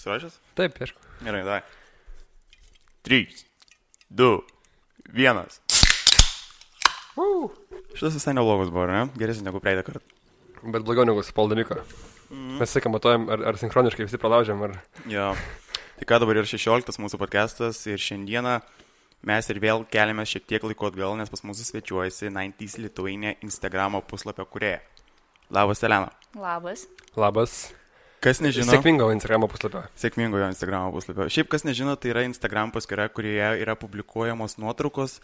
Pasiruošęs? Taip, aišku. Gerai, davai. 3, 2, 1. Šitas visai neblogas buvo, ne? Geresnis negu praeitą kartą. Bet blogiau negu su Paldamiko. Mes sakai, matuojam, ar sinchroniškai visi pralaužiam, ar... Jo. Tai ką dabar yra 16 mūsų podcastas ir šiandieną mes ir vėl keliamės šiek tiek laiko atgal, nes pas mūsų svečiuojasi 90s Lithuania Instagramo puslapio kūrėja. Labas, Elena. Labas. Labas. Kas nežino... Sėkmingo Instagramo puslapio. Sėkmingo jo Instagramo puslapio. Šiaip kas nežino, tai yra Instagram paskyra, kurioje yra publikuojamos nuotraukos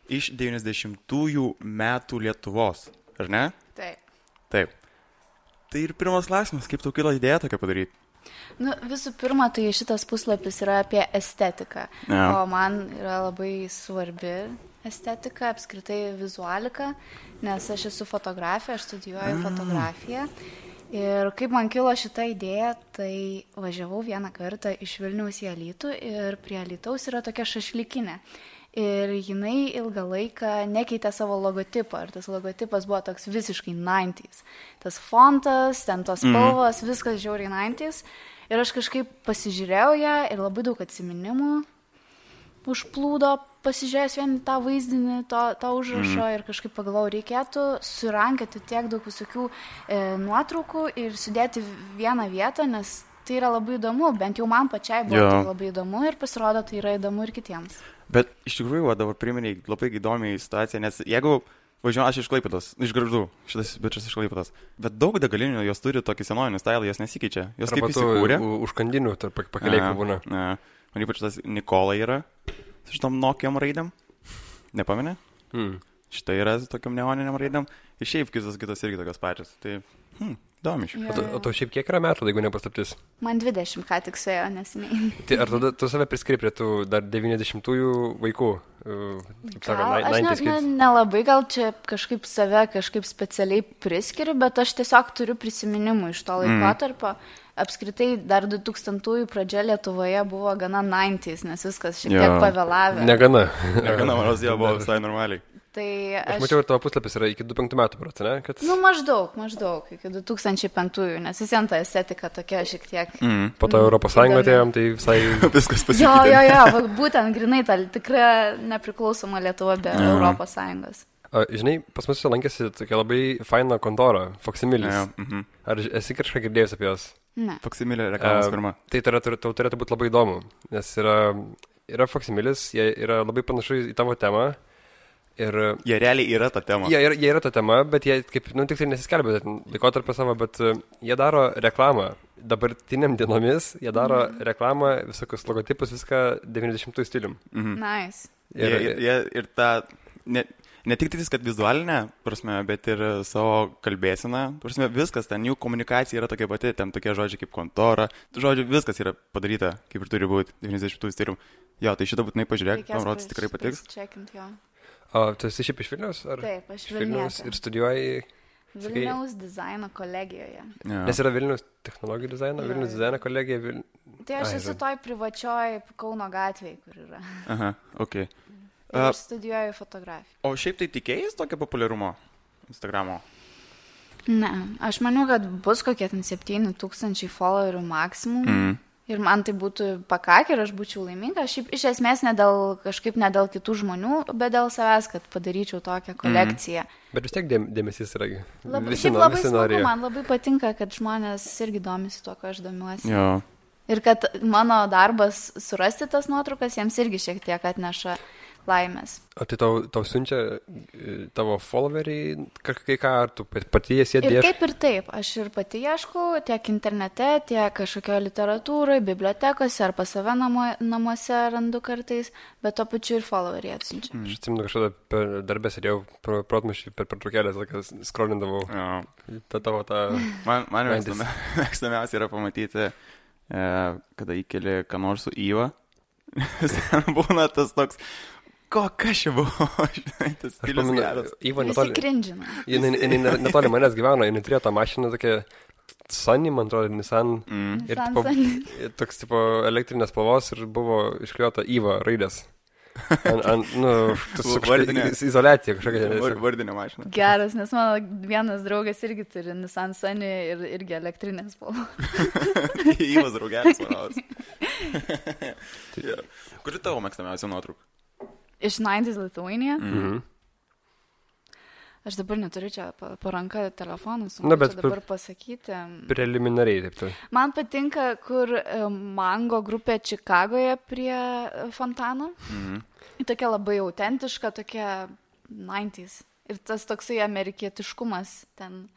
iš 90-ųjų metų Lietuvos. Ar ne? Taip. Taip. Tai ir pirmas klausimas, kaip tau kilo idėja tokia padaryti? Visų pirma, tai šitas puslapis yra apie estetiką. Ja. O man yra labai svarbi estetika, apskritai vizualika, nes aš esu fotografė, aš studijuoju fotografiją. Ir kaip man kilo šita idėja, tai važiavau vieną kartą iš Vilniaus į Alytų ir prie Alytaus yra tokia šašlykinė. Ir jinai ilgą laiką nekeitė savo logotipą. Ir tas logotipas buvo toks visiškai 90s. Tas fontas, ten tos spalvos, viskas žiauriai 90s. Ir aš kažkaip pasižiūrėjau ją ir labai daug atsiminimų užplūdo, pasižiūrėjęs vien tą vaizdinį, tą užrašą ir kažkaip pagalvojau, reikėtų surankioti tiek daug visokių nuotraukų ir sudėti vieną vietą, nes tai yra labai įdomu, bent jau man pačiai buvo tai labai įdomu ir pasirodo, tai yra įdomu ir kitiems. Bet iš tikrųjų, dabar priminiai labai įdomiai situaciją, nes jeigu važiuoju, aš iš Klaipėdos, iš Gargždų, šitas bičias iš Klaipėdos, bet daug degalinių jos turi tokį senovinį stylą, jos nesikeičia, jos kaip įsikūrė. Užkandinių tarp pakeliai būna. Man ypač tas Nikola yra, su šitom Nokiam raidėm, nepamenė? Štai yra su tokiam neoniniam raidėm, ir šiaip kitos irgi tokios pačios, tai įdomi iš. O to šiaip kiek yra metų, jeigu nepaslaptis? Man 20 ką tik suėjo neseniai. Tai ar tu save priskiri prie tų dar 90-ųjų vaikų? Aš nelabai gal čia kažkaip save kažkaip specialiai priskiriu, bet aš tiesiog turiu prisiminimų iš to laikotarpio. Apskritai dar 2000-ųjų pradžia Lietuvoje buvo gana 90s, nes viskas šiek tiek pavėlavę. Negana, manos jau buvo visai normaliai. Tai aš mačiau, ir tavo puslapis yra iki 2005 metų, ne? Kad... Maždaug, iki 2005-ųjų, nes vis vien ta estetika tokia šiek tiek... Po to Europos Sąjungą atėjom, tai visai... Viskas pasikeitė. Jo, būtent grinai ta tikra nepriklausoma Lietuva be Europos Sąjungos. Žinai, pas mus lankėsi tokia labai faina kontora, Faksimilis. Ar esi kažką girdėjus apie jos? Ne. Faksimilė reklamos firma. Tai tau turėtų būti labai įdomu, nes yra Faksimilis, jie yra labai panašu į tavo temą. Ir jie realiai yra ta tema. Jie yra ta tema, bet jie kaip, tik tai nesiskelbė laikotarpio savo, bet jie daro reklamą. Dabartiniam dienomis jie daro reklamą, visokius logotipus, viską 90-ųjų stilium. Nice. Ir ta, ne tik tai, kad vizualinė prasme, bet ir savo kalbėsena, prasme, viskas, ten jų komunikacija yra tokia pati, ten tokie žodžiai kaip kontora, žodžiu, viskas yra padaryta, kaip ir turi būti 90-ųjų stilium. Jo, tai šitą būtinai pažiūrėk, man rodos tikrai patiks. O tu esi šiaip iš Vilniaus? Taip, aš Vilnius. Ir studijuoji... Vilniaus dizaino kolegijoje. Ja. Nes yra Vilniaus technologijų dizaino, Vilniaus dizaino kolegija. Tai aš esu toj privačioj Kauno gatvėje, kur yra. Aha, okei. Ir aš studijuoju fotografiją. O šiaip tai tikėjais tokio populiarumo Instagramo? Ne, aš maniau, kad bus kokie 7000 followerių maksimum. Ir man tai būtų pakakę ir aš būčiau laiminga. Šiaip iš esmės ne dėl kitų žmonių, bet dėl savęs, kad padaryčiau tokią kolekciją. Bet vis tiek dėmesys yra. Labai smagu, man labai patinka, kad žmonės irgi domisi tuo, ko aš domiuosi. Jo. Ir kad mano darbas surasti tas nuotraukas jiems irgi šiek tiek atneša laimės. O tai tau siunčia tavo followeriai, kai ką, ar tu pati jas įdėši? Ir taip ir taip. Aš ir pati ieškau tiek internete, tiek kažkokio literatūrai, bibliotekose ar pas save namuose randu kartais, bet to pačiu ir followeriai atsiunčia. Aš atsimenu kažkada per darbę sėdėjau protmaišį per pertraukėlės, skrolindavau tą... Man mėgstamiausia yra pamatyti, kada įkeli ką nors su Įva. Būna tas toks... Kas čia buvo? Tas stilius geras. Visi krindžina. Jinai netoli manęs gyveno, jinai turėjo tą mašiną tokia Sunny, man atrodo, Nissan. Ir toks tipo elektrinės spalvos ir buvo išklijuota Įva raidės. Izoliacija kažkokia. Vardinė mašina. Geras, nes mano vienas draugas irgi turi Nissan Sunny ir irgi elektrinės spalvos. Įvas draugelis varavas. Kuri tavo mėgstamiausia nuotrauka? Iš 90's Lithuania. Mhm. Aš dabar neturiu čia po ranką telefonų, bet dabar pasakyti. Preliminariai, taip tai. Man patinka, kur Mango grupė Čikagoje prie fontano. Tokia labai autentiška, tokia 90's. Ir tas toksai amerikietiškumas ten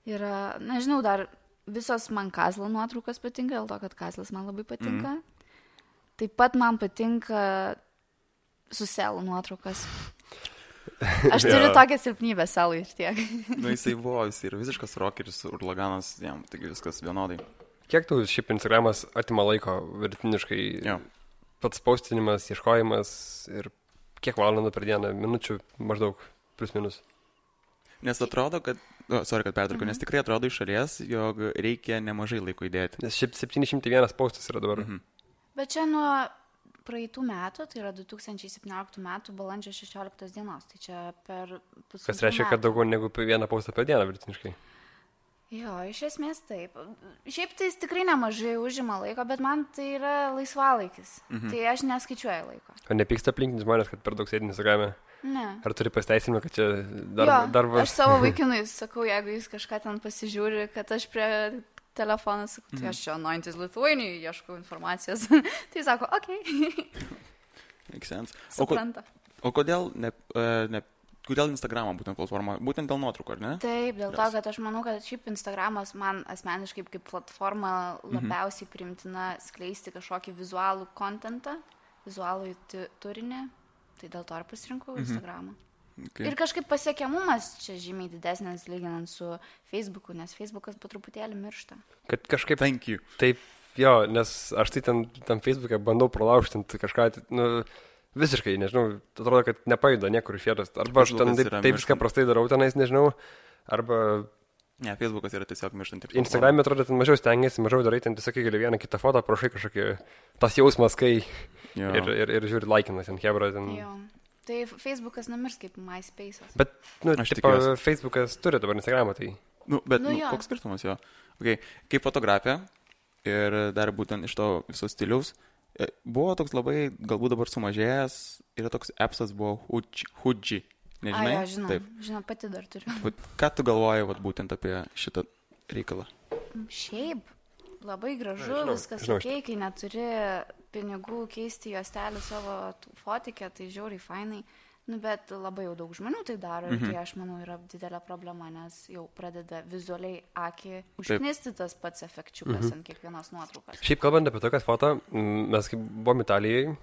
yra, nežinau, dar visos man Kazlo nuotraukos patinka, dėl to, kad Kazlas man labai patinka. Taip pat man patinka Suselų nuotraukas. Aš turiu tokią silpnybę Selui ir tiek. Jisai buvo, jis yra visiškas rockeris, urlaganas, jam, taigi viskas vienodai. Kiek tau šiaip Instagramas atima laiko vidutiniškai? Pats postinimas, ieškojimas ir kiek valandų per dieną, minučių maždaug, plus minus? Nes atrodo, kad, kad pertraukiu, nes tikrai atrodo iš šalies, jog reikia nemažai laiko įdėti. Nes šiaip 701 postas yra dabar. Bet čia nuo praeitų metų, tai yra 2017 metų balandžio 16 dienos, tai čia per pusantrų metų. Kas reiškia, kad daugiau negu vieną postą per dieną vidutiniškai? Jo, iš esmės taip. Šiaip tai tikrai nemažai užima laiko, bet man tai yra laisvalaikis. Tai aš neskaičiuoju laiko. O nepyksta aplinkinius žmonės, kad per daug sėdi Instagrame? Ne. Ar turi pasiteisinimą, kad čia Jo, darbas? aš savo vaikinui sakau, jeigu jis kažką ten pasižiūri, kad aš prie telefoną sakau, tai aš čia 90's Lithuania ieškau informacijos. Tai sako, okei. Make sense. Supranta. O kodėl kodėl Instagramą būtent platforma? Būtent dėl nuotraukų, ar ne? Taip, dėl to, kad aš manau, kad šiaip Instagramas man asmeniškai kaip platforma labiausiai priimtina skleisti kažkokį vizualų kontentą, vizualų turinį. Tai dėl to ir pasirinkau Instagramą. Okay. Ir kažkaip pasiekiamumas čia žymiai didesnis lyginant su Facebooku, nes Facebookas po truputėlį miršta. Kad kažkaip... Thank you. Taip, jo, nes aš tai tam Facebook'e bandau pralaužtinti kažką, visiškai, nežinau, atrodo, kad nepajuda niekur iš vietos. Arba aš ten taip viską prastai darau tenais, nežinau, arba... Ne, Facebookas yra tiesiog mirštanti. Instagram'e atrodo, ten mažiau stengiasi, mažiau darai, ten tiesiog gali vieną kitą fotą, prašai kažkokį tas jausmas, kai ir žiūri laikinas ant hebra. Jo. Tai Facebookas numirs kaip MySpace'as. Bet, Facebookas turi dabar Instagramą, tai... Koks skirtumas jo? Okay. Kaip fotografija ir dar būtent iš to viso stiliaus, buvo toks labai, galbūt dabar sumažėjęs, yra toks appsas buvo Huji. Nežinai? Žinau, pati dar turiu. Ką tu galvoji būtent apie šitą reikalą? Šiaip, labai gražu, viskas okei, kai neturi pinigų keisti juostelį savo fotikę, tai žiauriai fainai, bet labai jau daug žmonių tai daro ir tai aš manau yra didelė problema, nes jau pradeda vizualiai akį užknisti tas pats efekčiukas ant kiekvienos nuotraukos. Šiaip kalbant apie tokias foto, mes kaip buvom Italijai,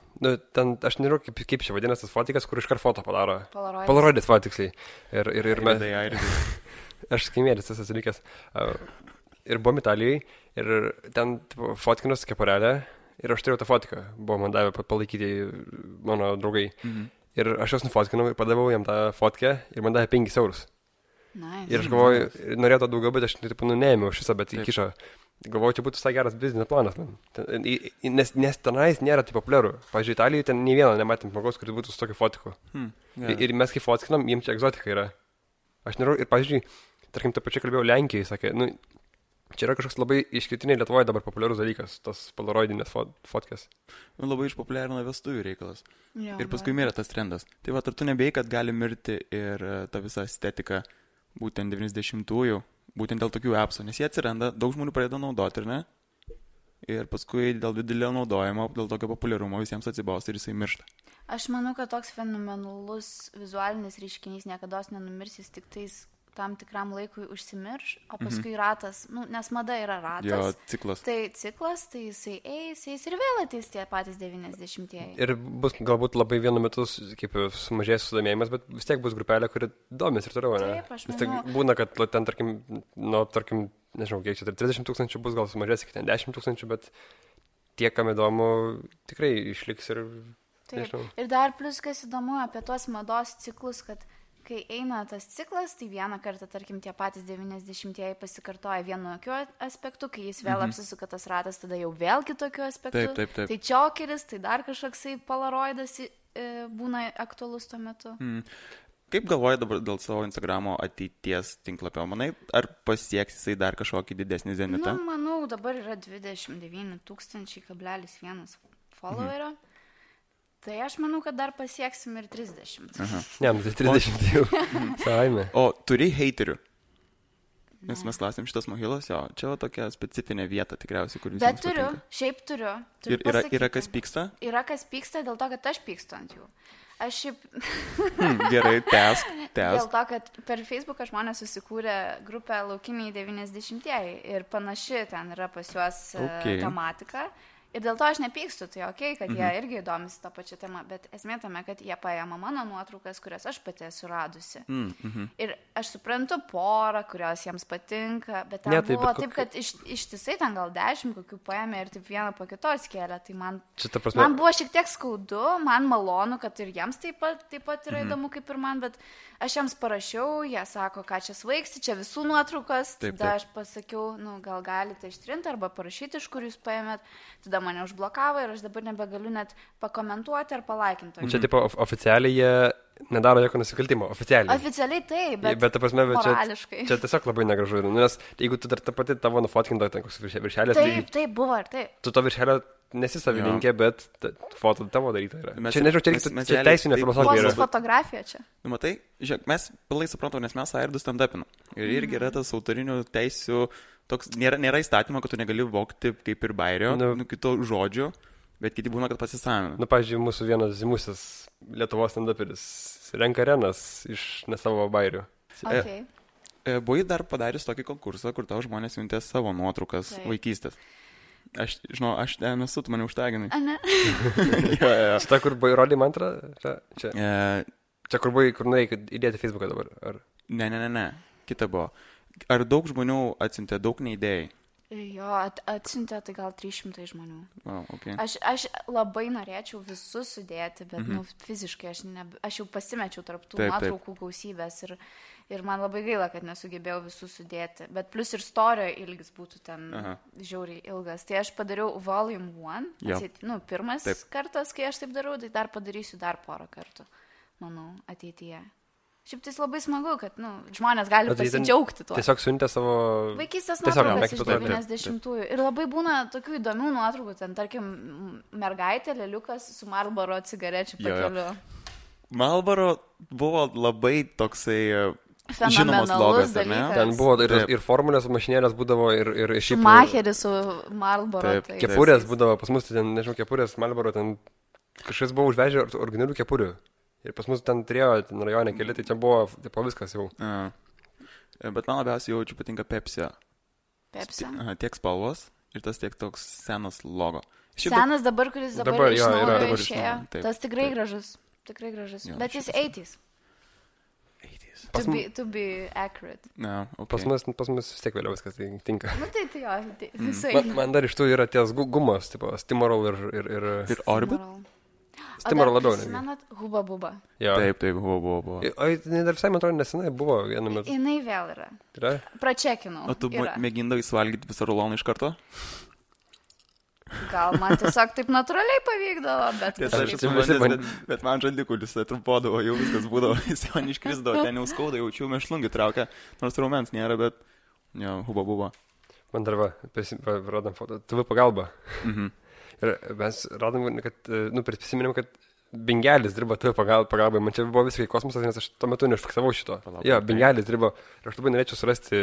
ten aš nežinau kaip čia vadinasi tas fotikas, kur iškart foto padaro. Polaroidis fotiksliai. Ir mes... Aš skaimėlis tas atsilikęs. Ir buvom Italijai ir ten fotkinos keparelė. Ir aš turėjau tą fotką, buvo man davę palaikyti mano draugai. Ir aš jos nufotkinau ir padavau jam tą fotkę ir man davė 5 eurus. Nice. Ir aš galvoju, norėjau to daugiau, bet aš neėmiau šitą, bet įkišo. Galvoju, čia būtų visai geras biznio planas, man. Nes tenais nėra taip populiaru. Pavyzdžiui, Italijoje ten nei vieno nematėm žmogaus, kuris būtų su tokiu fotiku. Ir mes kai fotkinam, jiems čia egzotika yra. Aš nerau, ir pavyzdžiui, tarkim, tą pačią kalbėjau Lenkijai, sakė, čia yra kažkoks labai išskirtiniai Lietuvoje dabar populiarus dalykas, tos polaroidinės fotkės. Labai išpopuliarino vestuvių reikalas. Ir paskui mirė tas trendas. Tai ar tu nebėjai, kad gali mirti ir ta visa estetika būtent 90-ųjų, būtent dėl tokių appsų, nes jie atsiranda, daug žmonių pradeda naudoti, ir ne? Ir paskui dėl didelio naudojimo, dėl tokio populiarumo visiems atsibausta ir jisai miršta. Aš manau, kad toks fenomenalus vizualinis reiškinys niekada nenumirs, jis tik tais tam tikram laikui užsimirš, o paskui ratas, nes mada yra ratas. Jo, ciklas. Tai ciklas, tai jisai eis ir vėl ateis tie patys 90-ieji. Ir bus galbūt labai vienu metu kaip sumažės sudomėjimas, bet vis tiek bus grupelė, kuri domės ir toliau, ne? Taip, aš manau. Vis tiek būna, kad ten, tarkim, nežinau, kiek čia, 30 000 bus, gal sumažės iki ten 10 000, bet tie, kam įdomu, tikrai išliks ir... Taip. Ir dar plus, kas įdomu apie tuos mados ciklus, kad kai eina tas ciklas, tai vieną kartą, tarkim, tie patys 90-ieji pasikartoja vienokiu aspektu, kai jis vėl apsisuka tas ratas, tada jau vėl kitokiu aspektu. Taip. Tai čiokeris, tai dar kažkoksai polaroidas būna aktualus tuo metu. Kaip galvoji dabar dėl savo Instagramo ateities tinklapio? Manai, ar pasieks jisai dar kažkokį didesnį zenitą? Manau, dabar yra 29 000,1 followerio. Tai aš manau, kad dar pasieksim ir 30. Ne, tai 30 jau. Savaime. O turi heiterių? Nes mes klausėm šitas mokylos, jo, čia tokia specifinė vieta tikriausiai, kur visiems patinka. Bet turiu, šiaip turiu. Ir yra kas pyksta? Yra kas pyksta dėl to, kad aš pykstu ant jų. Aš šiaip... Gerai, tęsk. Dėl to, kad per Facebooką žmonės susikūrė grupę Laukiniai 90-ieji ir panaši ten yra pas juos tematika. Ir dėl to aš nepykstu, tai kad jie irgi įdomisi tą pačią temą, bet esmė tame, kad jie paėma mano nuotraukas, kurias aš pati esu radusi. Ir aš suprantu porą, kurios jiems patinka, bet ten buvo taip, kad ištisai ten gal 10 kokių paėmė ir taip vieną po kitos kėlė. Tai man buvo šiek tiek skaudu, man malonu, kad ir jiems taip pat yra įdomu kaip ir man, bet aš jiems parašiau, jie sako, ką čia svaigsi, čia visų nuotraukas, tada aš pasakiau, gal galite ištrinti arba parašyti, iš kur jūs paėmėt, tada mane užblokavo ir aš dabar nebegaliu net pakomentuoti ar palaikinti. Čia tipo oficialiai jie nedaro jokio nusikaltimo, oficialiai. Oficialiai taip, bet ta prasme, morališkai. Čia tiesiog labai negražu, nes jeigu tu dar ta pati tavo nufotkinta ten koks viršelis, taip buvo ir taip. Tu to viršelio nesi savininkė, bet foto tavo daryta yra. Čia nežinau, čia teisinė filosofija yra. Fotografija čia. Matai, žiūrėk, mes pilai suprantam, nes mes Airdus stand-upinam. Ir irgi yra tas autorinių teisių, toks, nėra įstatymo, kad tu negali vogti kaip ir bairio, kito žodžių, bet kiti būna, kad pasisavina. Pavyzdžiui, mūsų vienas žymusis Lietuvos stand-uperis renka arenas iš ne savo bairių. Buvai dar padaręs tokį konkursą, kur tau žmonės siuntė savo nuotraukas vaikystės. Aš ten esu, tu mane užtaginai. A, ne? Šitą, kur buvai rodė mantrą? Čia kur buvai, kur norėjai įdėti Facebooką dabar? Ar... Ne. Kita buvo. Ar daug žmonių atsiuntė, daug neįdėjai? Jo, atsiuntė tai gal 300 žmonių. Okay. Aš labai norėčiau visus sudėti, bet fiziškai aš jau pasimečiau tarp tų nuotraukų gausybės ir man labai gaila, kad nesugebėjau visus sudėti. Bet plus ir storio ilgis būtų ten žiauriai ilgas. Tai aš padariau volume 1, pirmas kartas, kai aš taip darau, tai dar padarysiu dar porą kartų, manau, ateityje. Šiaip tai labai smagu, kad žmonės gali pasidžiaugti tuo. Tiesiog siuntė savo... Vaikystės nuotraukas iš 90-ųjų. Ir labai būna tokių įdomių nuotraukų. Ten, tarkim, mergaitė, leliukas su Marlboro cigarečių pakeliu. Marlboro buvo labai toksai žinomas logas, ne? Ten buvo ir formulės mašinėlės būdavo ir šiaip... Šumacheris su Marlboro. Kepurės būdavo, pas mus ten, nežinau, kepurės Marlboro, ten kažkas buvo užvežę originalių kepurių. Ir pas mus ten turėjo rajone keli, tai čia buvo viskas jau. Bet man labiausiai jaučiu patinka Pepsi. Pepsi? Tiek spalvos ir tas tiek toks senas logo. Senas dabar, kuris dabar iš naujo išėjo. Tas tikrai gražus. Tikrai gražus. Bet jis 80s. To be accurate. Pas mus vis tiek vėliau viskas tinka. Tai jo, visai. Man dar iš tų yra ties gumos, tipo Stimorol ir Orbit. Stimorol labiau. Prisimenat Huba Buba? Taip, Huba Buba. O dar visai, man atrodo, nesenai buvo vienu metu. Jinai vėl yra. Pračekinau. O tu mėgindavai suvalgyti visą ruloną iš karto? Gal man tiesiog taip natūraliai pavykdavo, bet man žandikulis trumpodavo, jau viskas būdavo, jis man iškrisdavo, ten jau skauda, jaučiu mešlungį traukia, nors raumens nėra, bet Huba Buba. Man dar rodam foto, TV pagalba. Ir mes radom, kad, prisiminėm, kad Bingelis dirba TV pagalbai. Man čia buvo visiškai kosmosas, nes aš tuo metu neužfiksavau šito. Bingelis dirba. Ir aš labai norėčiau surasti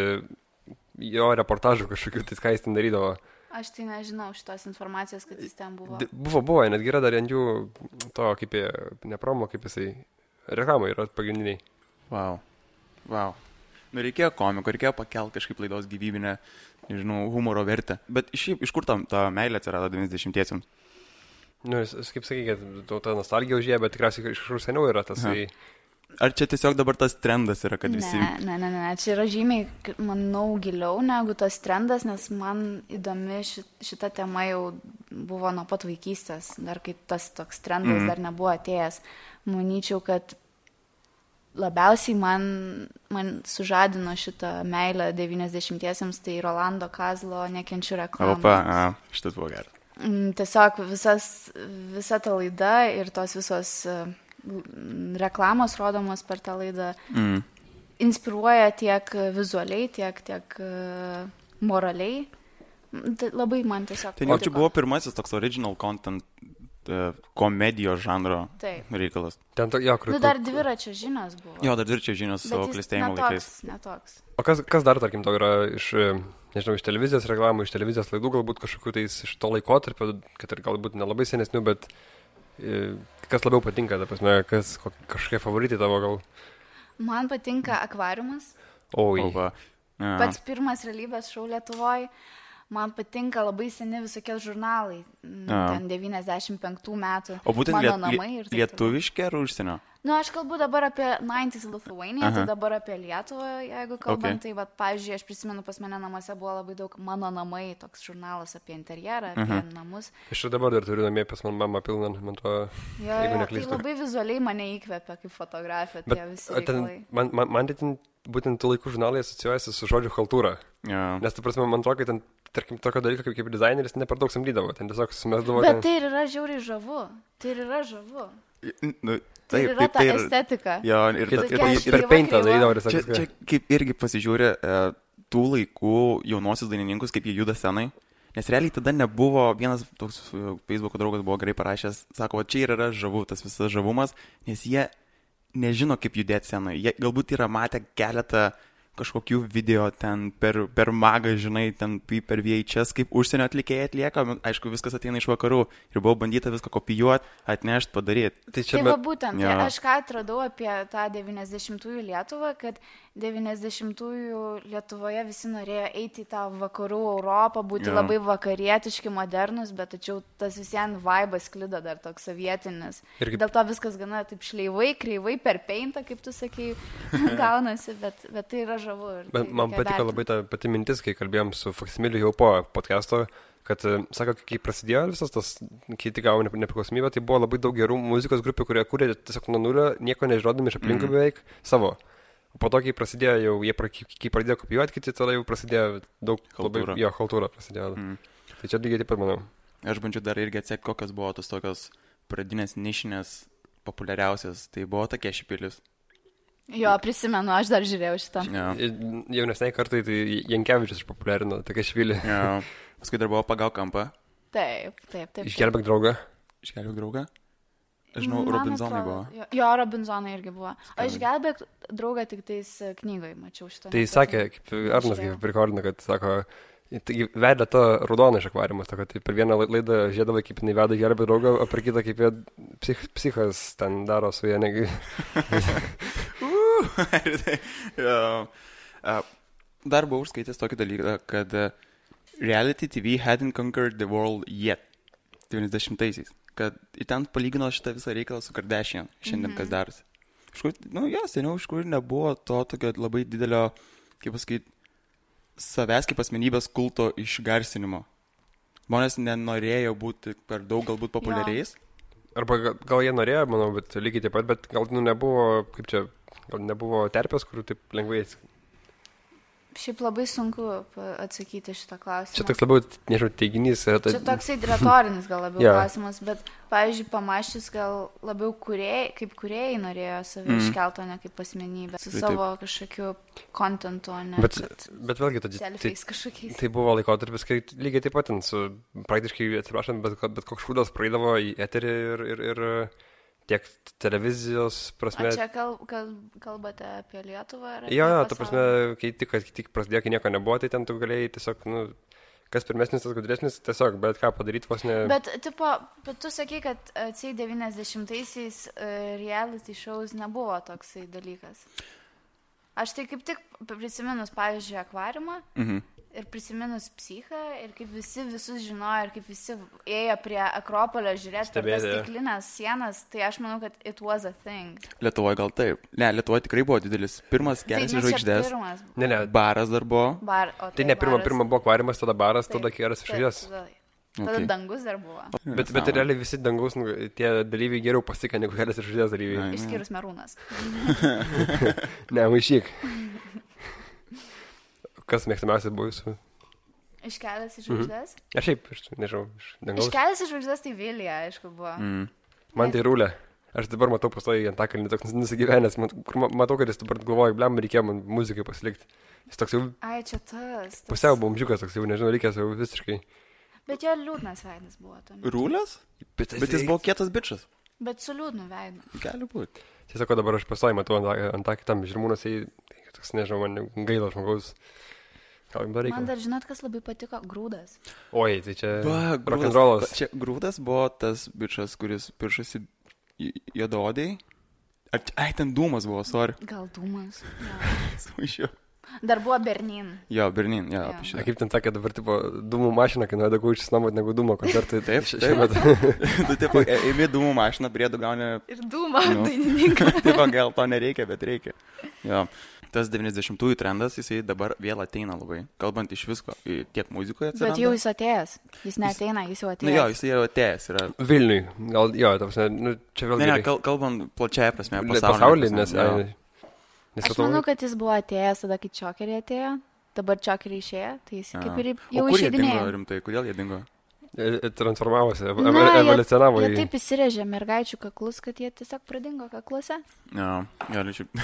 jo reportažų kažkokių, tai ką jis ten darydavo. Aš tai nežinau šitos informacijos, kad jis ten buvo. Buvo, netgi yra dar ant jų to, kaip jie, ne promo, kaip jisai, reklamai yra pagrindiniai. Wow. Reikėjo komiko, reikėjo pakelti kažkaip laidos gyvybinę, nežinau, humoro vertę. Bet iš kur ta meilė atsirado 90-iesiems? Kaip sakai, kad ta nostalgija užėjo, bet tikriausiai iš kur seniau yra tas. Ar čia tiesiog dabar tas trendas yra, kad visi... Ne, čia yra žymiai, manau, giliau negu tas trendas, nes man įdomi šita tema jau buvo nuo pat vaikystės, dar kai tas toks trendas dar nebuvo atėjęs. Manyčiau, kad labiausiai man sužadino šitą meilę 90-iesiems, tai Rolando Kazlo Nekenčiu reklamos. Opa, šitas buvo geras. Tiesiog visa ta laida ir tos visos reklamos rodomos per tą laidą inspiruoja tiek vizualiai, tiek moraliai. Labai man tiesiog... Tai čia buvo pirmasis toks original content komedijos žanro reikalas. Ten dar dviračio žinios buvo. Jo, dar dviračio žinios savo klestėjimo laikais. Netoks. O kas dar, tarkim, to yra iš televizijos reklamų, iš televizijos laidų, galbūt kažkokių tais iš to laikotarpio, kad ir galbūt nelabai senesnių, bet kas labiau patinka, ta prasme, kažkokie favoritai tavo gal? Man patinka Akvariumas. Oi. Pats pirmas realybės šou Lietuvoje. Man patinka labai seni visokie žurnalai, ten 95 metų. O būtent Mano namai ir lietuviški ar užsienio? Aš kalbu dabar apie 90s Lithuania, tai dabar apie Lietuvą, jeigu kalbant, tai, pavyzdžiui, aš prisimenu, pas mane namuose buvo labai daug Mano namai, toks žurnalas apie interjerą, apie namus. Aš dabar dar turiu namie pas man mamą pilną, man to, jeigu neklystu. Tai labai vizualiai mane įkvepia kaip fotografija, tie visi reikalai. Man tai būtent tų laikų žurnalai asocijuojasi su žodžiu chaltūra. Nes, ta prasme, man atrodo, kad ten, tarkim, tokio dalyko kaip dizaineris ne per daug samdydavo, ten tiesiog sumesdavo. Bet tai ir yra žiauriai žavu. Tai yra ta estetika. Jo, ir per peintą darydavo. Čia kaip irgi pasižiūrė tų laikų jaunosius dainininkus, kaip jie juda scenai. Nes realiai tada nebuvo, vienas toks Facebook'o draugas buvo gerai parašęs, sako, čia ir yra žavu, tas visas žavumas, nes jie nežino, kaip judėti scenai. Jie galbūt yra matę keletą kažkokių video ten per magą, žinai, ten per VHS, kaip užsienio atlikėjai atlieka, aišku, viskas ateina iš vakarų ir buvo bandyta viską kopijuoti, atnešti, padaryti. Tai va būtent, aš ką atradau apie tą 90-ųjų Lietuvą, kad 90-ųjų Lietuvoje visi norėjo eiti į tą vakarų Europą, būti labai vakarietiški, modernus, bet tačiau tas visien vaibas sklido dar toks sovietinis. Dėl to viskas gana taip šleivai, kreivai, per peintą, kaip tu sakei, gaunasi, bet tai yra žavu. Man patiko labai ta pati mintis, kai kalbėjom su Faksimiliu jau po podcast'o, kad, sako, kai prasidėjo visas tas, kai tik gavo nepriklausomybę, tai buvo labai daug gerų muzikos grupių, kurie kūrė tiesiog nuo nulio, nieko nežinodami iš aplinkų beveik savo. O po to, kai prasidėjo jau, kai pradėjo kopijuoti, kiti tada jau prasidėjo daug chaltūra. Jo, chaltūra prasidėjo. Tai čia lygiai taip pat, manau. Aš bandžiau dar irgi atsekti, kokios buvo tos tokios pradinės nišinės populiariausias. Tai buvo tokie Šipilis. Jo, prisimenu, aš dar žiūrėjau šitą. Jaunesniai kartai, tai Jankevičius išpopuliarino tokia Šipilį. Paskui dar buvo Pagauk kampą. Taip. Išgelbėk draugą. Aš žinau, Robinzonai buvo. Jo, Robinzonai irgi buvo. O Išgelbėk draugą tik tais knygoje mačiau šitą. Tai sakė, kaip Arnas kaip prikorino, kad sako, vedė tą raudoną iš akvariumas, tai per vieną laidą žiedavai, kaip jinai veda Gelbėk draugą, o per kitą, kaip jie psichas ten daro su jie negi. Dar buvau užskaitęs tokį dalyką, kad reality TV hadn't conquered the world yet. 90-aisiais. Kad į ten palygino šitą visą reikalą su Kardashian, šiandien kas darosi. Seniau iš kur nebuvo to tokio labai didelio, kaip pasakyti, savęs kaip asmenybės kulto išgarsinimo. Žmonės nenorėjo būti per daug galbūt populiariais. Arba gal jie norėjo, manau, bet lygiai taip pat, bet gal nebuvo, kaip čia, gal nebuvo terpės, kurių taip lengvai. Šiaip labai sunku atsakyti šitą klausimą. Čia toks labiau, nežinau, teiginys. Čia toksai retorinis gal labiau klausimas, bet, pavyzdžiui, pamaščius gal labiau kaip kūrėjai norėjo save iškelti, o ne kaip asmenybę. Su savo kažkokiu kontentu, o ne bet vėlgi, selfiais kažkokiais. Tai buvo laikotarpis, kai lygiai taip pat su praktiškai, atsiprašant, bet koks šūdas praeidavo į eterį ir tiek televizijos prasme. O čia kalbate apie Lietuvą? Jo, ta prasme, kai tik prasidėjo, kai nieko nebuvo, tai ten tu galėjai tiesiog, kas pirmesnis, tas gudresnis, tiesiog, bet ką padaryti vos ne... Bet tu sakai, kad 90-aisiais reality shows nebuvo toksai dalykas. Aš tai kaip tik prisiminus, pavyzdžiui, Akvariumą ir prisiminus Psichą ir kaip visus žinojo ir kaip visi ėjo prie Akropolio žiūrėti per tas stiklinės sienas, tai aš manau, kad it was a thing. Lietuvoje gal taip. Ne, Lietuvoje tikrai buvo didelis. Pirmas Kelias į žvaigždes. Ne. Baras dar buvo. Tai ne, pirma buvo Akvariumas, tada baras, tada Kelias į žvaigždes. Tada dangus dar buvo. Bet realiai visi dangaus, tie dalyviai geriau pasika negu Kelias iš žvaigždės dalyviai. Išskyrus Merūnas. Ne, maišyk. Kas mėgstamiausias buvo jūsų? Iš Kelias iš žvaigždės? Aš šiaip, nežinau, iš dangaus. Iš Kelias iš žvaigždės tai Vilija, aišku, buvo. Man tai Rūlė. Aš dabar matau pastoji Antakalnį toks nusigyvenęs, kur matau, kad jis dabar galvoja, blem, reikėjo man muzikai pasilikti. Jis toks jau... Ai, čia tas. Pusiau bomžiukas toks jau, nežinau, reikės jau visiškai. Bet jo liūdnas veidas buvo. Rūlės? Bet jis buvo kietas bičas. Bet su liūdnu veidu. Gali būti. Tiesiog dabar aš pastoji matau Antakį tam Žirmūnas, toks, nežinau, man gaila žmogaus. Man dar žinot, kas labai patiko? Grūdas. Oi, tai čia rock'n'rollas. Čia Grūdas buvo tas bičas, kuris piršasi juodaodėjai. Ai, ten Dūmas buvo, sorry. Gal Dūmas. Sumaišiau. Dar buvo Bernin. Jo, Bernin, jo. Kaip ten sakė, dabar tipo Dūmų mašina, kai nuėda gaučius namot negu Dūmo koncertai. Taip. Tu tipo, ėmė Dūmų mašiną, priedų gauni... Ir Dūmą dainininką. Tipo, gal to nereikia, bet reikia. Jo. Tas 90-ųjų trendas, jisai dabar vėl ateina labai. Kalbant iš visko, tiek muzikoje atsiranda. Bet jau jis atėjęs. Jis neateina, jis jau atėjęs. Nu jo, jis jau atėjęs yra. Vilniui. Gal, jo, čia vėl... Ne, kalbant plačiaja prasme, pasaulyje. Nes aš manau, kad jis buvo atėjęs tada, kai Čokeriai atėjo. Dabar Čokeriai išėjo, tai jis kaip ir jau išeidinėjo. O kur jie dingo rimtai? Kodėl jie dingo? Transformavosi, evoliucionavo. Jie taip įsirėžė mergaičių kaklus, kad jie tiesiog pradingo kakluose. Gali šiaip.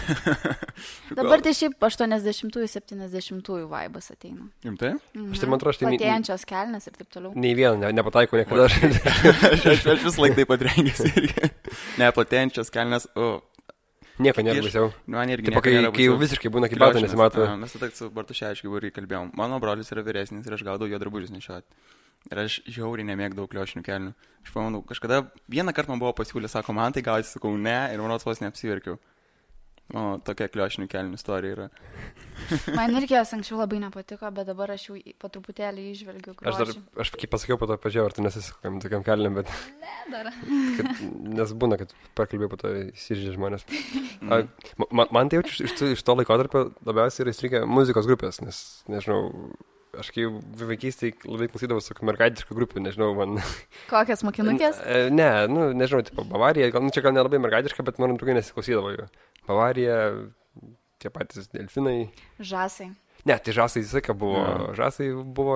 Dabar tai šiaip 80-ųjų, 70-ųjų vaibas ateina. Rimtai? Aš tai man atrodo, platėjančios kelnes ir taip toliau. Nei vieną, nepataiko niekada. Aš vis laik taip pat rengėsi irgi. Ne, platėjančios kelnes, Nieko nėra baisiau. Man irgi nieko nėra baisiau. Kai jau visiškai būna kaip batai nesimato. Mes tada su Bartuševičiu irgi kalbėjom. Mano brolis yra vyresnis ir aš gaudau jo drabužius nešioti. Ir aš žiauriai nemėgdavau kliošinių kelnių. Aš pamanau, kažkada vieną kartą man buvo pasiūlę, sako, man tai gausi, sakau, ne, ir mano vos neapsiverkiau. Tokia kliošinių kelnių istorija yra. Man irgi jos anksčiau labai nepatiko, bet dabar aš jau po truputėlį išvelgiu grožį. Aš kaip pasakiau, po to pažiūrėjau, ar tu nesisakam tokiam kelniam, bet... Ne, dar. Nes būna, kad pakalbėjau, po to įsiržė žmonės. Man tai jau iš to laikotarpio labiausiai yra įstrigę muzikos grupės, nes, nežinau... Aš kai vaikystėje labai klausydavau su mergaitiškų grupių, nežinau, man... Kokias mokinukės? Ne, nežinau, tipo Bavarija, čia gal nelabai mergaitiška, bet man trūkai nesiklausydavo jų. Bavarija, tie patys delfinai. Žasai. Ne, tai žasai visą laiką buvo. Žasai buvo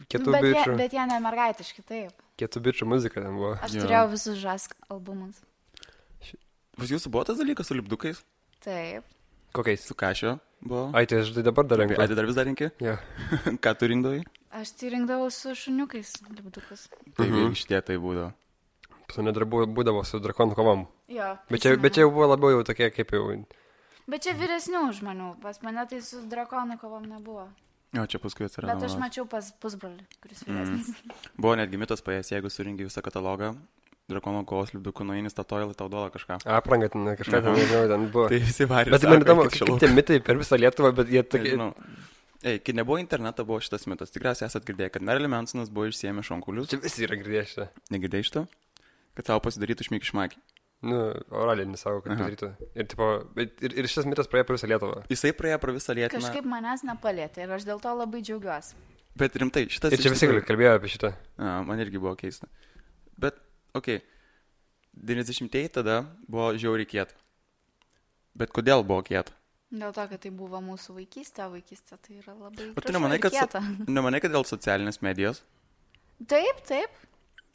kietų bičių. Bet jie ne mergaitiški, taip. Kietų bičių muzika ten buvo. Aš turėjau visus žask albumus. Pas jūsų buvo tas dalykas su lipdukais? Taip. Kokiais? Su Kašio buvo. Ai, tai aš dabar dar renku. Ai, tai dar vis dar renki? Jo. Ką tu rinkdavai? Aš tai rinkdavau su šuniukais lipdukus. Tai šitie tai būdavo. Pas mane dar būdavo su drakonų kovom. Jo. Bet čia jau buvo labiau jau tokie kaip jau... Bet čia vyresnių žmonių. Pas mane tai su drakonų kovom nebuvo. Jo, čia paskui atsirado. Bet aš mačiau pas pusbrolį, kuris vyresnis. Buvo netgi mitas paės, jeigu surinki visą katalogą. Drakono kovos lipdukų nueini Statoilą, tau duoda kažką. Aprangą ten kažką ten buvo. Tai visi varė. Bet man įdomu, kaip tie mitai per visą Lietuvą, bet jie tokie... Kai nebuvo interneto, buvo šitas mitas. Tikriausiai esat girdėję, kad Marilyn Mansonas buvo išsiėmę šonkulius. Čia visi yra girdėję šitą. Negirdėjai šitą? Kad savo pasidarytų šmikšmakį. Oraliai nesavo, kad padarytų. Ir šitas mitas praėjo per visą Lietuvą. Jisai praėjo per visą Lietuvą. Kažkaip manęs nepalėtė ir aš dėl to labai džiaugiuosi. Bet rimtai, šitas... Ir čia visi kalbėjo apie šitą. Man irgi buvo keista. Bet, okei. 90-ieji tada buvo žiauriai kieta. Bet kodėl buvo kieta? Dėl to, kad tai buvo mūsų vaikystė, vaikystė tai yra labai gražu ir kieta. Nemanai, kad dėl socialinės medijos? Taip.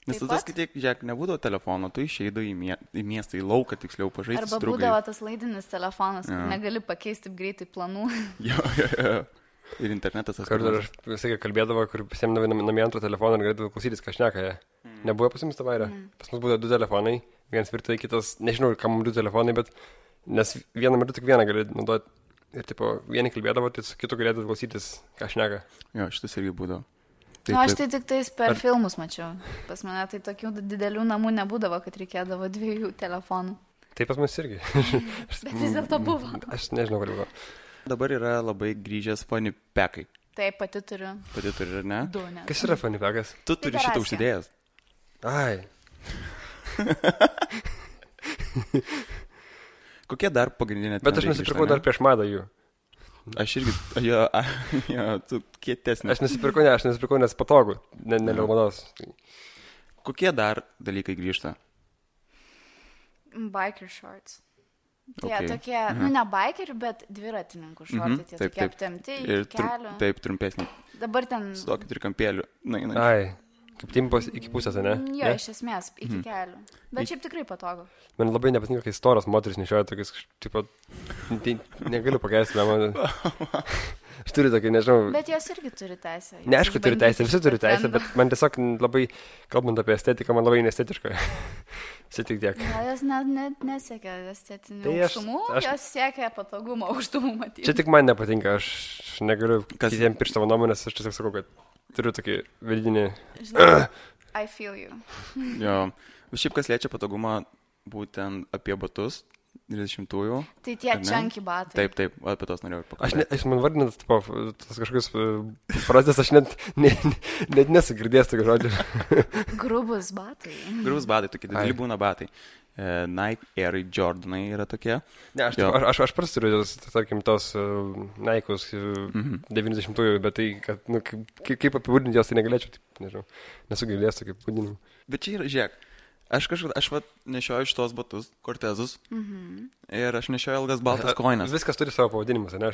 Nes tu tas, kad žiūrėk, nebūdavo telefono, tu išeidai į miestą, į lauką, tiksliau, pažaisti su draugais. Arba būdavo tas laidinis telefonas, kur negali pakeisti greitai planų. Jo. Ir internetas tas. Kartu aš visai kalbėdavo, kur pasiemdavai namie antrą telefoną ir galėdavai klausytis, ką šneka jie. Nebuvo pas jums tavairė. Pas mus būdavo 2 telefonai, vienas virtuvėje, kitas, nežinau, kam 2 telefonai, bet nes vieną metu tik vieną gali naudoti. Ir tipo, vieni kalbėdavo, tai su kitu galėdavai klausytis, ką šneka. Jo, šitas irgi būdavo. Aš tai tik tais per filmus mačiau. Pas mane tai tokių didelių namų nebūdavo, kad reikėdavo 2 telefonų. Tai pas mus irgi. Bet vis dėlto buvo. Aš nežinau, kur buvo. Dabar yra labai grįžęs funny packai. Taip, pati turiu. Pati turi, ar ne? 2, ne? Kas yra funny packas? Tu turi šitą užsidėjęs. Ai. Kokie dar pagrindinė... Bet aš nusipirkau dar prieš madą jų. Aš irgi, tu kietesnis. Aš nusipirkau, nes patogu, ne dėl mados. Kokie dar dalykai grįžta? Biker shorts. Tie tokie, ne bikerių, bet dviratininkų šortai, tie tokie aptemti iki kelių. Taip, trumpesni. Dabar ten... Su tokiu trikampėliu. Ai, kaip timpos iki pusės, ne? Jo, iš esmės, iki kelių. Bet šiaip tikrai patogu. Man labai nepatinka, kai storos moteris nešioja tokius, tipo, negaliu pakeisti, man... Aš turiu tokį, nežinau... Bet jos irgi turi teisę. Ne, aišku, turi teisę, visi turi teisę, bet man tiesiog labai, kalbant apie estetiką, man labai nestetiška. Čia tik tiek. Jos nesiekia estetinių aukštumų, jos siekia patogumo aukštumų matyti. Čia tik man nepatinka, aš negaliu kitiem piršti savo nuomonės, aš tiesiog sakau, kad turiu tokį vidinį... I feel you. Jo, šiaip kas liečia patogumą būtent apie batus, 20-ųjų. Tai tie čanky batai. Taip, apie tos norėjau pakalbėti. Aš man vardinat, tas kažkokius frazės, aš net nesugirdėjęs tokio žodžio. Grubus batai. Grubus batai, tokie dideli būna batai. Nike Air Jordanai yra tokie. Ne, aš prasturiu, tarkim, tos Nike'us 90-ųjų, bet tai, kad, kaip apibūdinti jos, tai negalėčiau, nežinau, nesugirdėjęs tokį apibūdinimą. Bet čia yra, žiūrėk. Aš nešioju šitos batus, Cortezus, ir aš nešioju ilgas baltas kojines. Viskas turi savo pavadinimus, ne?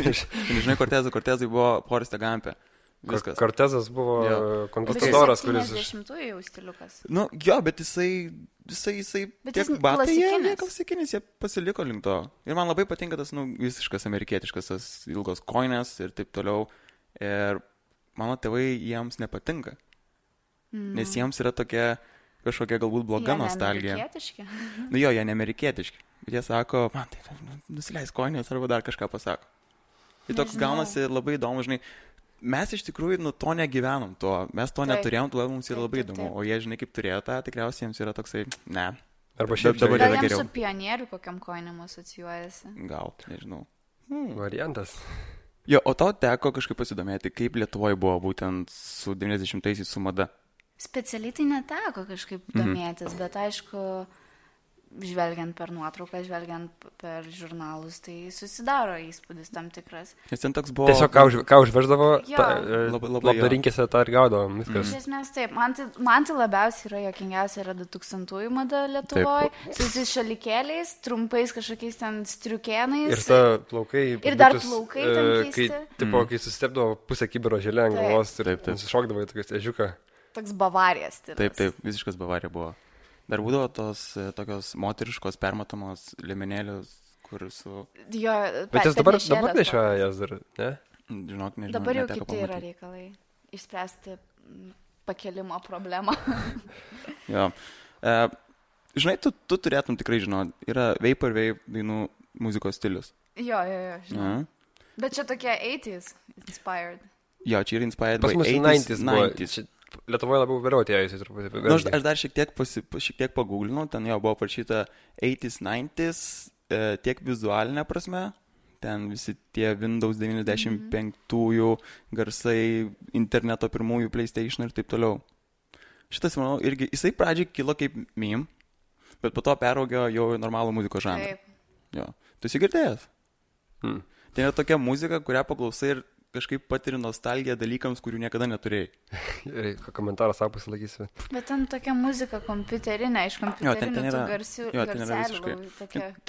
Žinai, Cortezai buvo Foreste Gampe. Viskas. Cortezas buvo konquistadoras, kuris... 70-ųjų jau stiliukas. Nu, jo, bet jisai tiek batai, jie klasikinis, jie pasiliko link to. Ir man labai patinka tas, visiškas amerikietiškas, tas ilgos kojines ir taip toliau. Ir mano tėvai jiems nepatinka. Nes jiems yra kažkokia galbūt bloga nostalgija. Jie neamerikietiški? Jo, jie neamerikietiški. Bet jie sako, man tai nusileis kojinės arba dar kažką pasako. Ir toks gaunasi labai įdomu, žinai. Mes iš tikrųjų to negyvenom to. Mes to neturėjom, todėl mums yra labai įdomu. O jie, žinai, kaip turėjo tą, tikriausiai jiems yra toksai, ne. Arba šiaip dabar yra geriau. Gal jiems su pionieriu kokiam kojinėm asocijuojasi? Gal, nežinau. Variantas. Jo, o tau teko kažkaip pasidomėti, kaip Lietuvoje buvo būtent su 90-aisiais su mada? Specialiai tai neteko kažkaip domėtis, bet aišku, žvelgiant per nuotrauką, žvelgiant per žurnalus, tai susidaro įspūdis tam tikras. Nes ten toks buvo... Tiesiog ką užveždavo, labdarinkėse tą ir gaudavo, viskas. Iš esmės taip, man tai labiausiai yra jokingiausia yra 2000-ųjų mada Lietuvoje, su visais šalikėliais, trumpais kažkokiais ten striukėnais. Ir ta plaukai... Ir dar plaukai ten keisti. Kai susitepdavo pusę kibiro želė ant galvos ir nusišokdavo į tokias ežiuką. Toks Bavarijas stilius. Taip, visiškas Bavarija buvo. Dar būdavo tos tokios moteriškos permatomos liemenėlius, kur su... Jo, bet jis dabar nešioja jas dar, ne? Žinok, nežinau. Dabar jau kiti yra reikalai. Išspręsti pakelimo problemą. Jo. Žinai, tu turėtum tikrai žinot, yra vaporwave dainų muzikos stilius. Jo, žinau. Bet čia tokie 80s inspired. Jo, čia yra inspired by 80s. Lietuvoje labiau vėliau atėjusi truputį. Aš dar šiek tiek pagūglinau, ten jau buvo parašyta 80s, 90s, tiek vizualinė prasme, ten visi tie Windows 95-ųjų garsai, interneto pirmųjų PlayStation ir taip toliau. Šitas, manau, irgi, jisai pradžiai kilo kaip meme, bet po to peraugio jau normalų muzikos žanrą. Jo. Tu esi girdėjęs? Tai yra tokia muzika, kurią paklausai ir kažkaip patiri nostalgiją dalykams, kurių niekada neturėjai. Komentarą savo pasilakysiu. Bet ten tokia muzika kompiuterinė, iš kompiuterinių tų garselių.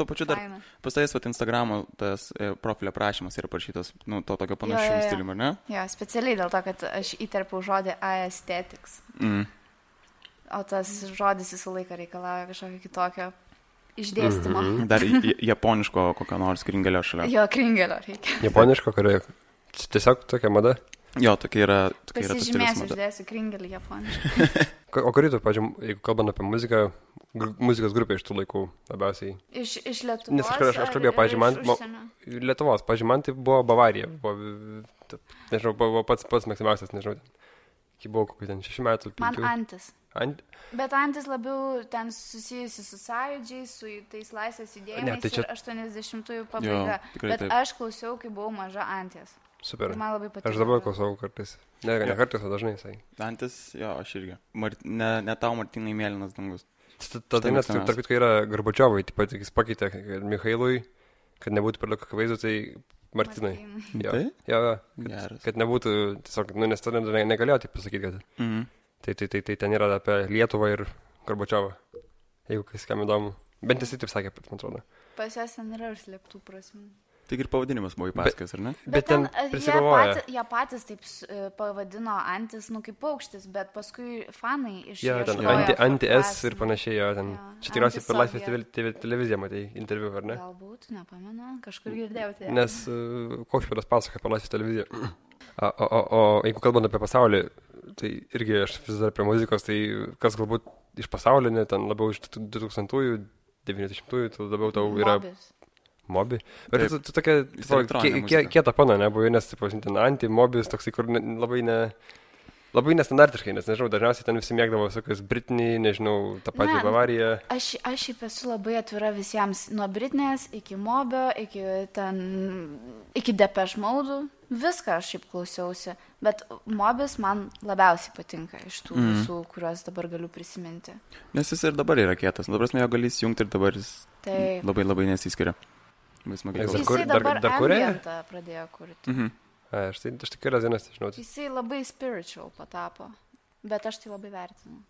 Tuo pačiu dar pastais Instagramo tas profilio prašymas yra parašytas, to tokio panašių stilių, ne? Jo, specialiai dėl to, kad aš įterpiau žodį aesthetics. O tas žodis visą laiką reikalauja kažkokio kitokio išdėstymo. Dar japoniško kokio nors kringelio šalia. Jo, kringelio reikia. Japoniško, kurio... Tiesiog tokia mada? Jo, tokia yra tas stilius mada. Pasižymėsiu, uždėsiu kringelį japoniškai. O kurį tu, pažiūrėjau, jeigu kalbant apie muziką, muzikos grupė iš tų laikų labiausiai? Iš Lietuvos? Nes aš kalbėjau, pažiūrėjau, Lietuvos, pažiūrėjau, man tai buvo Bavarija. Nežinau, buvo pats maksimaliausias, nežinau. Kai buvo kokių ten 6 metų. 5. Man Antis. Bet Antis labiau ten susijusi su sąjūdžiais, su tais laisvės judėjimais ir 80-ųjų pabaiga. Bet aš klausiau, kai buvau maža Anties. Super. Man labai patiko. Aš dabar klausau kartais. Ne kartais, o dažnai jisai. Antis, jo, aš irgi. Ne tau, Martynai, mėlynas dangus. Ta daina, tarp kitko, yra Gorbačiovui, taip pat jis pakeitė Mikhailui, kad nebūtų per daug akivaizdų, tai Martynai. Tai? Kad nebūtų, tiesiog, nes tada negalėjo taip pasakyti, kad tai ten yra apie Lietuvą ir Gorbačiovą. Jeigu kas kam įdomu. Bent jisai taip sakė, man atrodo. Pas jas ten yra užslėptų prasmių. Tik ir pavadinimas buvo įpasakas, ar ne? Bet ten prisigalvoja. Jie patys taip pavadino antis, kaip paukštis, bet paskui fanai iš... Jo, ten anti-S ir panašiai, jo, ten. Čia tikriausiai per Laisvės televiziją matei interviu, ar ne? Galbūt, nepamenu, kažkur girdėjau tai. Nes Kaušpėdas pasako per Laisvės televiziją. O jeigu kalbant apie pasaulį, tai irgi aš vis dar prie muzikos, tai kas galbūt iš pasaulinė, ten labiau iš 2000-ųjų, 90-ųjų, tai labiau tau yra... Mobi. Bet tu tokia kieta pana nebuvai, nes, ten anti-mobis, toksai, kur labai nestandartiškai, nes, nežinau, dažniausiai ten visi mėgdavo visokios Britney, nežinau, tą patį Bavariją. Aš šiaip esu labai atvira visiems, nuo Britnės iki Mobio, iki Depeche Mode'ų, viską aš šiaip klausiausi, bet Mobis man labiausiai patinka iš tų visų, kuriuos dabar galiu prisiminti. Nes jis ir dabar yra kietas, dabar jo gali įsijungti ir dabar jis labai nesiskiria. Jisai dabar ambientą pradėjo kurti. Aš tik yra dienas, žinau. Jisai labai spiritual patapo, bet aš tai labai vertinu.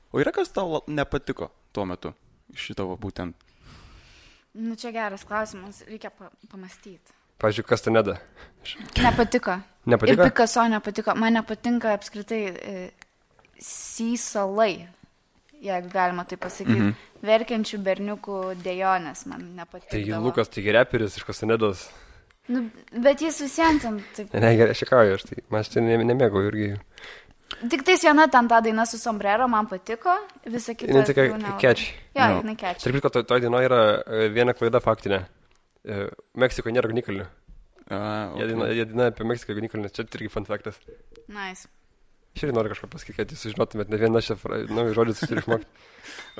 O yra kas tau nepatiko tuo metu iš šito būtent? Čia geras klausimas, reikia pamastyti. Pavyzdžiui, Castaneda. Nepatiko. Ir Picasso nepatiko. Man nepatinka apskritai Sysalai, jeigu galima tai pasakyti. Verkiančių berniukų dejonės man nepatikdavo. Tai Lukas, taigi reperis iš Castanedos. Bet jis visiems ten taip... Ne, gerai, aš šikauju, aš tai nemėgau irgi. Tik tais viena ten ta daina su sombrero man patiko, visa kita... Jinai tokia catchy. Jo, jinai catchy. Tarp kitko, toj dainoj yra viena klaida faktinė. Meksikoje nėra ugnikalnių. Jie daina apie Meksikoje ugnikalnių, čia irgi fun factas. Nice. Aš irgi noriu kažką pasakyti, kad jūs sužinotumėt, ne vieną šią naują žodį turi išmokti.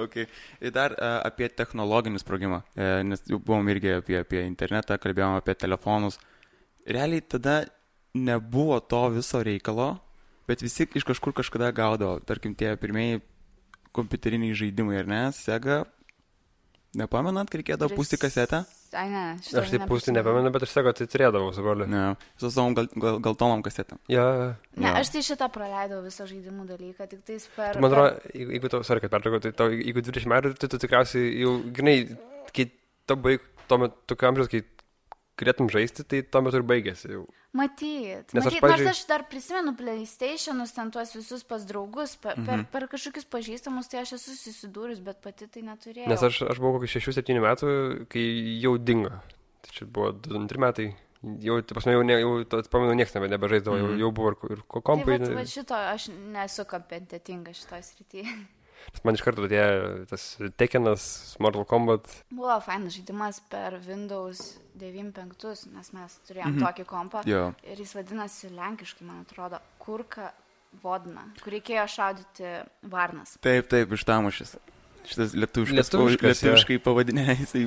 Okay. Ir dar apie technologinį sprogimą, nes jau buvom irgi apie internetą, kalbėjom apie telefonus. Realiai tada nebuvo to viso reikalo, bet visi iš kažkur kažkada gaudavo. Tarkim, tie pirmieji kompiuteriniai žaidimai, ar ne? Sega, nepamenat, kai reikėdavo pūsti kasetę? Ai, ne, aš taip pūsti nepamenu, bet aš Sega tai turėdavau su broliu. Ne, su savom galtonom kasetėm. Ne, aš tai šitą praleidau visą žaidimų dalyką, tik tais per... Man atrodo, jeigu tau, sorry, kad pertraukau, tai jeigu 20 metų, tai tu tikriausiai jau, grinai, kai tau baig, tuo metu, tokiu amžiaus, kai galėtum žaisti, tai tuo metu ir baigėsi jau. Matyt, nors aš dar prisimenu PlayStationus, ten tuos visus pas draugus, per kažkokius pažįstamus, tai aš esu susidūrus, bet pati tai neturėjau. Nes aš buvau kokį 6-7 metų, kai jau dingo. Tai čia buvo 2-3 metai. Jau, pamenu, nieks nebežaisdavo, jau buvo ir kompai. Tai va šito, aš nesu kompetitinga šitoj srityje. Man iš karto atėjo tas Tekkenas, Mortal Kombat. Buvo fainas žaidimas per Windows 9.5, nes mes turėjom tokį kompą. Ir jis vadinasi lenkiškai, man atrodo, Kurka Vodna, kur reikėjo šaudyti varnas. Taip, iš Tamušės. Šitas lietuviškai pavadinė, jisai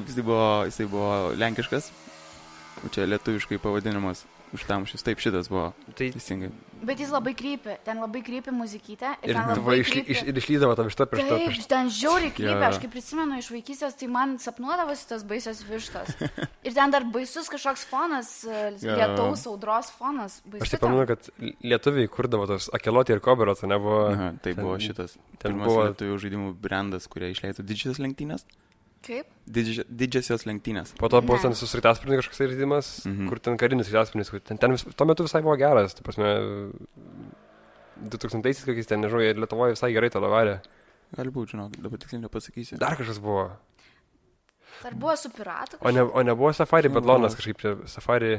buvo lenkiškas, o čia lietuviškai pavadinimas. Už Tamušės, taip šitas buvo teisingai. Bet jis labai krypi, ten labai krypi muzikytė. Ir išlydavo tam vištą prieš to. Taip, ten žiauriai krypi, aš kaip prisimenu iš vaikystės, tai man sapnuodavosi tas baisios vištos. Ir ten dar baisus kažkoks fonas, lietaus audros fonas. Aš taip pamenu, kad lietuviai kurdavo tos Akelotį ir Koberotą, nebuvo... Tai buvo šitas pirmas lietuvių žaidimų brandas, kurie išleido Didžiosios lenktynės. Kaip? Didžiosios lenktynės. Po to buvo ten su sraigtasparniu kažkoks žaidimas, kur ten karinis sraigtasparnis, kur ten tuo metu visai buvo geras, tai prasme 2000-aisiais kokiais ten, nežinau, ir Lietuvoje visai gerai tą lavarė. Gali būti, žinok, dabar tiksliai nepasakysiu. Dar kažkas buvo. Dar buvo su piratu? O nebuvo Safari Badlonas kažkaip čia, Safari...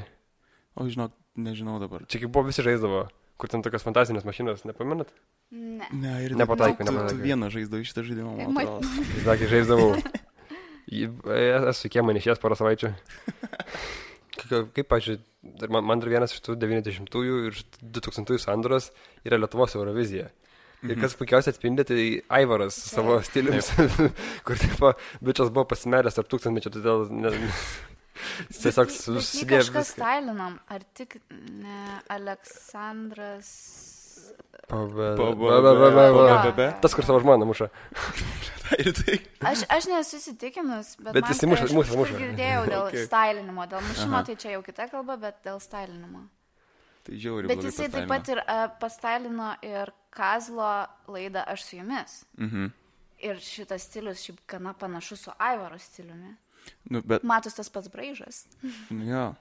O, žinok, nežinau dabar. Čia kaip buvo visi žaisdavo, kur ten tokios fantasinės mašinos, nepamenat? Ne, ir nepataikė. Tu vieną žaisdavai šitą žaidimą, man atrodo. Sakė, žaisdavau. Esu kiemą išėjęs porą savaičių. Kaip, pažiūrėjau, man dar vienas iš tų 90-ųjų ir 2000-ųjų sandūros yra Lietuvos Eurovizija. Ir kas puikiausiai atspindi, tai Aivaras savo stiliumi, kur taip, bičias buvo pasimeręs tarp tūkstantmečio, todėl tiesiog susidėjo kažkas stylinam, ar tik ne Aleksandras... Tas, kur savo žmoną muša. Aš nesu įsitikinus, bet jis muša. Girdėjau dėl stylinimo, dėl mušimo, tai čia jau kita kalba, bet dėl stylinimo. Tai žiauri, bet jisai taip pat ir pastylino ir Kazlo laidą Aš su jumis. Ir šitas stilius šiaip gana panašus su Aivaro stiliumi. Matos tas pats braižas. Jo.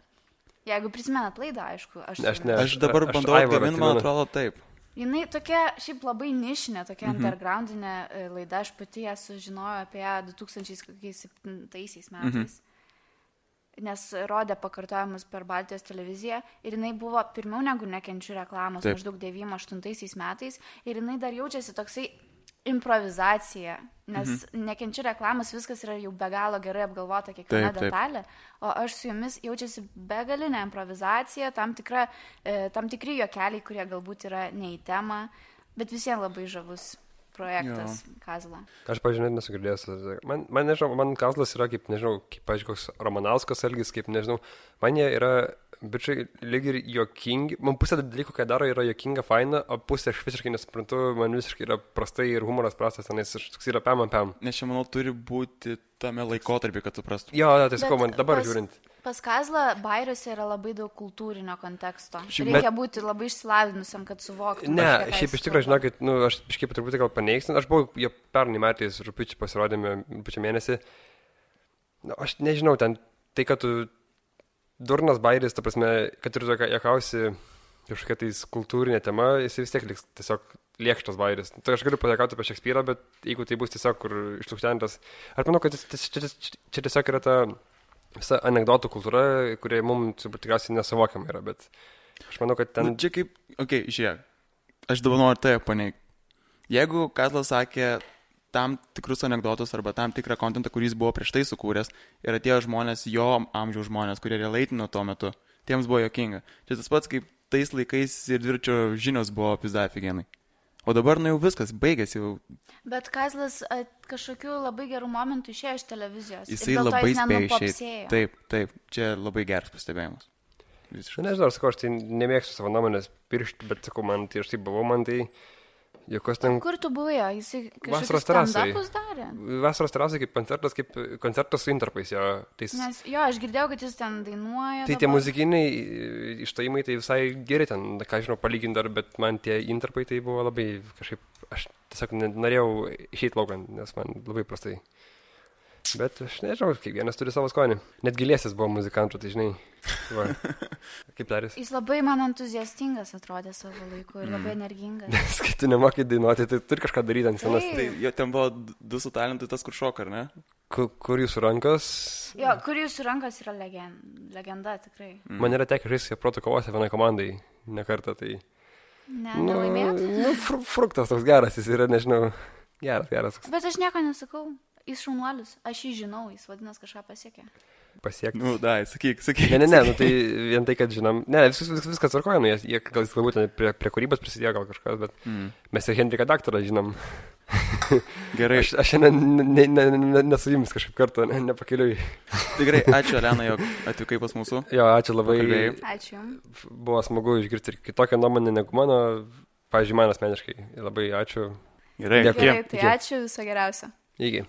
Jeigu prisimenat laidą, aišku. Aš dabar bandau atgamint, man atrodo taip. Jinai tokia šiaip labai nišinė, tokia undergroundinė laida. Aš pati ją sužinojau apie 2007 metais. Nes rodė pakartojimus per Baltijos televiziją ir jinai buvo pirmiau negu Nekenčiu reklamos, maždaug 98 metais, ir jinai dar jaučiasi toksai improvizacija, nes Nekenčiu reklamos viskas yra jau be galo gerai apgalvota kiekviena detalė, o Aš su jumis jaučiasi begalinė improvizacija, tam tikri juokeliai, kurie galbūt yra ne į temą, bet visiems labai žavus projektas Kazla. Aš, pažiūrėjau, nesu girdėjęs. Man nežinau, man Kazlas yra kaip, nežinau, pažiūrėjau, koks Ramanauskas elgis, kaip, nežinau, man jie yra, bičiai, lyg ir juokingi. Man pusė dalykų, ką daro, yra juokinga, faina, o pusė aš visiškai nesuprantu, man visiškai yra prastai ir humoras prastas, nes toks yra pam. Nes čia, manau, turi būti tame laikotarpį, kad suprastum. Jo, tai sakau, man dabar žiūrint. Pas Kazlą bairiuose yra labai daug kultūrinio konteksto. Reikia būti labai išsilavinusiam, kad suvoktum. Ne, šiaip iš tikrųjų, žinokit, aš kažkaip truputį gal paneigsiu. Aš buvau jo pernai metais rugpjūčio pasirodėme rugpjūčio mėnesį. Aš nežinau, ten tai, kad tu durnas bairis, ta prasme, kad ir tu juokausi kažkokia tais kultūrinė tema, jis vis tiek liks tiesiog lėkštas bairis. Tai aš galiu pajuokauti apie Šekspyrą, bet jeigu tai bus tiesiog kur išlukštentas, aš manau, kad čia tiesiog yra ta visa anekdotų kultūra, kurie mums tikriausiai nesuvokiama yra, bet aš manau, kad ten... Nu, čia kaip, žiūrėk, aš dabar noriu tai paneigti. Jeigu Kazlas sakė tam tikrus anekdotus arba tam tikrą kontentą, kurį jis buvo prieš tai sukūręs, ir atėjo žmonės, jo amžiaus žmonės, kurie relaitino tuo metu, tiems buvo juokinga. Čia tas pats, kaip tais laikais ir dviračio žinios buvo pizdafigenai. O dabar, jau viskas, baigėsi jau. Bet Kazlas kažkokiu labai gerų momentų išėjo iš televizijos. Jisai labai spėjo išėjti. Taip, čia labai geras pastebėjimas. Visiškai. Nežinau, sakau, aš tai nemėgstu savo nuomonės piršti, bet sakau, man tai aš taip buvau, man tai... Ten... Kur tu buvai? Jisai kažkokius stand-upus darė? Vasaros terasai kaip koncertas su intarpais. Nes aš girdėjau, kad jis ten dainuoja. Tai tie muzikiniai išstojimai tai visai geri ten, ką žinau, palyginti dar, bet man tie intarpai tai buvo labai kažkaip, aš tiesiog norėjau išeiti laukan, nes man labai prastai. Bet aš nežinau, kiekvienas turi savo skonį. Net Gilėsis buvo muzikantų, tai žinai. Va. Kaip darys? Jis labai man entuziastingas atrodė savo laiku ir labai energingas. Nes kai tu nemokai dainuoti, tai turi kažką daryti ant scenos. Tai jo ten buvo du su talentu, tas kur šoka, ar ne? Kur jūsų rankas? Jo, kur jūsų rankas yra legenda, tikrai. Man yra tekę žaisti proto kovose vienai komandai, ne kartą, tai... Nelaimėjot? Fruktas toks geras, jis yra, nežinau, geras. Bet aš nieko nesakau. Jis šaunuolis, aš jį žinau, jis vadinas kažką pasiekė. Pasiekti? Sakyk. Ne, tai vien tai, kad žinom, viskas tvarkoja, jie gal jis galbūt prie kūrybos prisidėjo gal kažkas, bet mes ir Henriką daktarą žinom. Gerai. Aš šiandien nesu jums kažkaip kartą, nepakeliui. Tikrai, ačiū Elena, jog atvykai pas mūsų. Jo, ačiū labai. Ačiū jums. Buvo smagu išgirsti ir kitokią nuomonę negu mano, pavyzdžiui, man asmeniškai. Labai ačiū. Gerai, tai ačiū, viso geriausio. Iki.